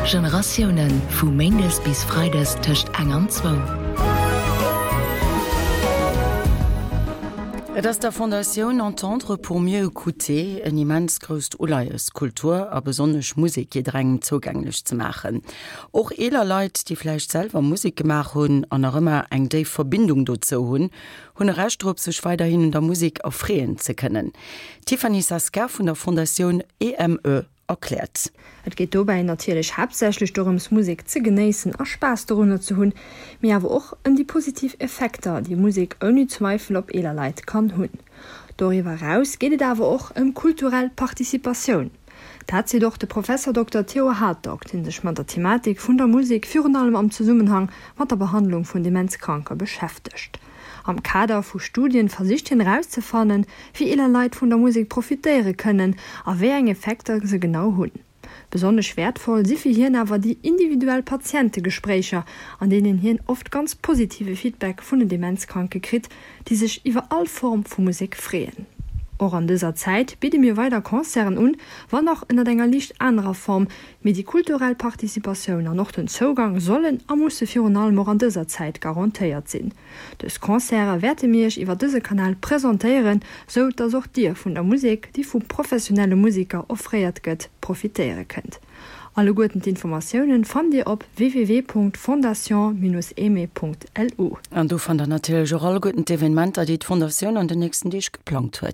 Generatiounen, vu méindes bis freides tëscht eng an zwou. Et ass der Fondatioun Entendre pour mieux écouter en immens grousst Uleies, Kultur a besonnesch Musek jidderengem zougänglech ze maachen. Och eeler Leit, déi vläicht selwer Musek gemaach hunn an nach ëmmer eng déif Verbindung dozou hunn, hunn e Recht drop, sech weiderhin un der Musek erfreeën ze kënnen. D'Tiffany Saska vun der Fondatioun EME erkläert. Et geet dobäi natierlech haaptsächlech dorëms Musek ze genéissen a Spaass dorunner ze hunn, mee awer och ëm déi positiv Effekter, déi Musek ouni Zweifel op eeler Leit kann hunn. Doriwwer eraus geet et awer och ëm kulturell Participatioun. Dat seet och de Professer Dokter Theo Hartog, dee sech mat der Thematik vun der Musek virun allem am Zesummenhang mat der Behandlung vun Demenzkranke beschäftegt. Am Kader vu Studien versicht hien erauszefannen, wéi eeler Leit vun der Musek profitéiere kënnen a wéi eng Effekter se genau hunn. Besonnesch wäertvoll si fir hien awer déi individuell Patientegespréicher, an deenen hien oft ganz positive Feedback vun den Demenzkranke kritt, déi sech iwwer all Form vu Musek freeën. Och an dëser Zäit bidde mir weider Concerten un, wann och ënnert enger liicht anerer Form, mee déi kulturell Participatioun an och den Zougang sollen a musse virun allem och an dëser Zäit garantéiert sinn. Dës Concerte wäerte mir iech iwwer dëse Kanal presentéieren, sou dass och dir vun der Musek, déi vu professionelle Museker offréiert gëtt, profitéiere kënnt. Alleguerten d'Informatiounen fannt dir op www.fondation-aimée.lu. An do fannt der natierlech och alleguerten d'Evenementer, déi d'Fondatioun an den nächsten Deeg geplangt huet.